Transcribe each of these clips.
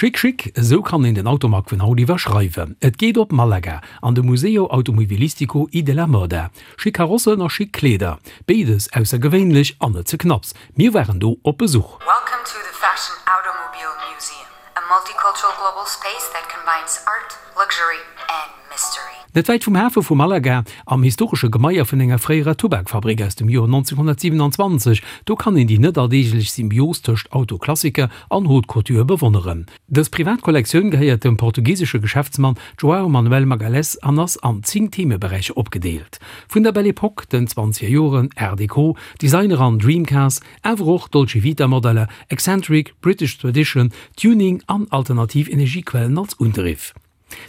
Chic chic, esou kann een den Automag vun haut iwwerschreiwen. Et geet op Malaga, an de Museo Automobilistico y de la Moda. Chic Karossen a chic Kleeder, béides aussergewéinlech an net ze knapps. Mir waren do op Besuch. Welcome to the Fashion Automobile Museum, a multicultural global space that combines art, luxury and mystery. Net wäit vum Hafe vu Malaga, am historesche Gemaier vun enger fréierer Tubakfabrik aus dem Joer 1927, do kann een déi net alldeeglech Symbios tëscht Autoklassiker an Haute Couture bewonneren. Dës privat Kollektioun gehéiert dem portugisesche Geschäftsmann João Manuel Magalhães an ass an 10 Themeberäicher opgedeelt, vun der Belle Epoque, den zwanzeger Joren, Art Deco, Designer an Dream Cars, awer och Dolce Vita Modeller, Eccentric, British Tradition, Tuning an alternativ Energiequellen als Undriff.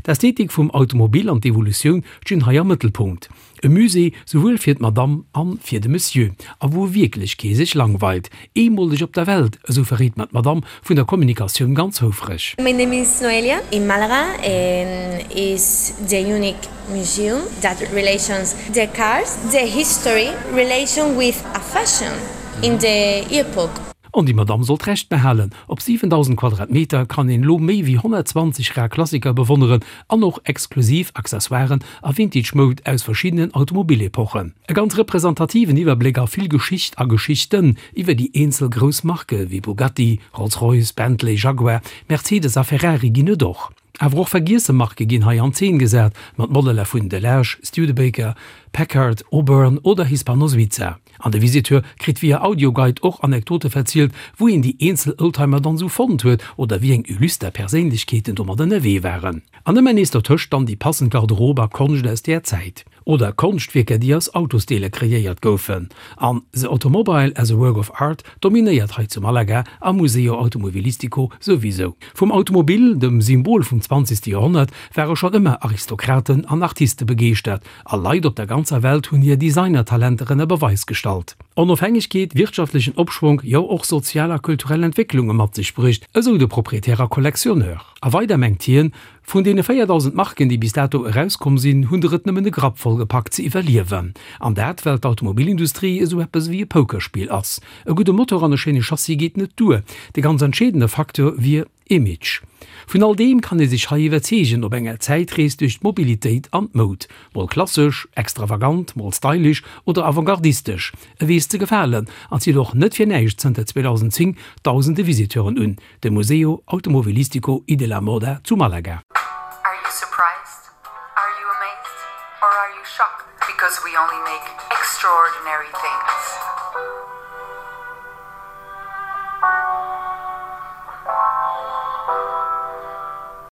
D'Ästhetik vum Automobil an d'Evolutioun stinn hei am Mëttelpunkt. E Musée souwuel fir d'Madame an fir de Monsieur, a wou wierklech kee sech langweilt. Eemoleg op der Welt, esou verréit mer d'Madame vun der Kommunikatioun ganz houfreg. My name is Noelia in Malaga and is the unique museum that relations the cars, the history relation with a fashion in the epoch. An déi Madamm sollt Recht behalen, Op 7.000 Quadratmeter kann een elo méi wéi 120 rar Klassiker bewonneren an och exklusiv Accessoiren a Vintage-Moud aus verschiddenen Automobilepochen. E ganz representativen Iwwerbléck a vill Geschicht a Geschichten iwwer déi eenzel grouss Marke wéi Bugatti, Rolls-Royce, Bentley, Jaguar, Mercedes a Ferrari ginn et och. Awer och vergiesse Marke ginn hei an Zeen gesat, mat Modeller vun Delage, Studebaker, Packard, Auburn oder Hispano-Suiza. An de Visiteur kritt via Audioguide och Anekdote verzielt, wou een déi eenzel Oldtimer dann esou fonnt huet oder wéi eng illuster Perséinlechkeeten domat ënnerwee waren. An ëmmer nees dertëscht dann déi passend Garderobe a Konscht aus där Zäit. Oder Konschtwierker, déi aus Autosdeeler kreéiert goufen. An The Automobile as a Work of Art dominéiert hei zu Malaga am Museo Automobilistico souwisou. Vum Automobil, dem Symbol vum zwanzegste Joerhonnert, ware schonn ëmmer Aristokraten an Artiste begeeschtert, a Leit op der ganzer Welt hunn hir Designertalenter ënner Beweis gestallt. Onofhängegkeet, wirtschaftlechen Opschwonk, jo och sozial a kulturell Entwécklunge mat sech bruecht, esou de Proprietär a Collectionneur. A weider mengt hien, Vun deene 4.000 Marken, déi bis dato erauskomm sinn, hunn der et nëmmen e Grapp voll gepackt ze iwwerliewen. An dat, well d'Automobilindustrie esou eppes ewéi e Pokerspill ass. E gudde Motor an e schéine Chassis geet net duer, de ganz entscheedende Facteur wier Image. Vun all deem kann ee sech hei iwwerzeegen op enger Zäitrees duerch d'Mobilitéit an d'Moud. Mol klassesch, extravagant, mol stylish oder avantgardistesch, e weess ze gefalen an zitt och net fir näischt zënter 2010 dausende Visiteuren un. De Museo Automobilistico y de la Moda zu Malaga. Are you surprised? Are you amazed? Or are you shocked? Because we only make extraordinary things.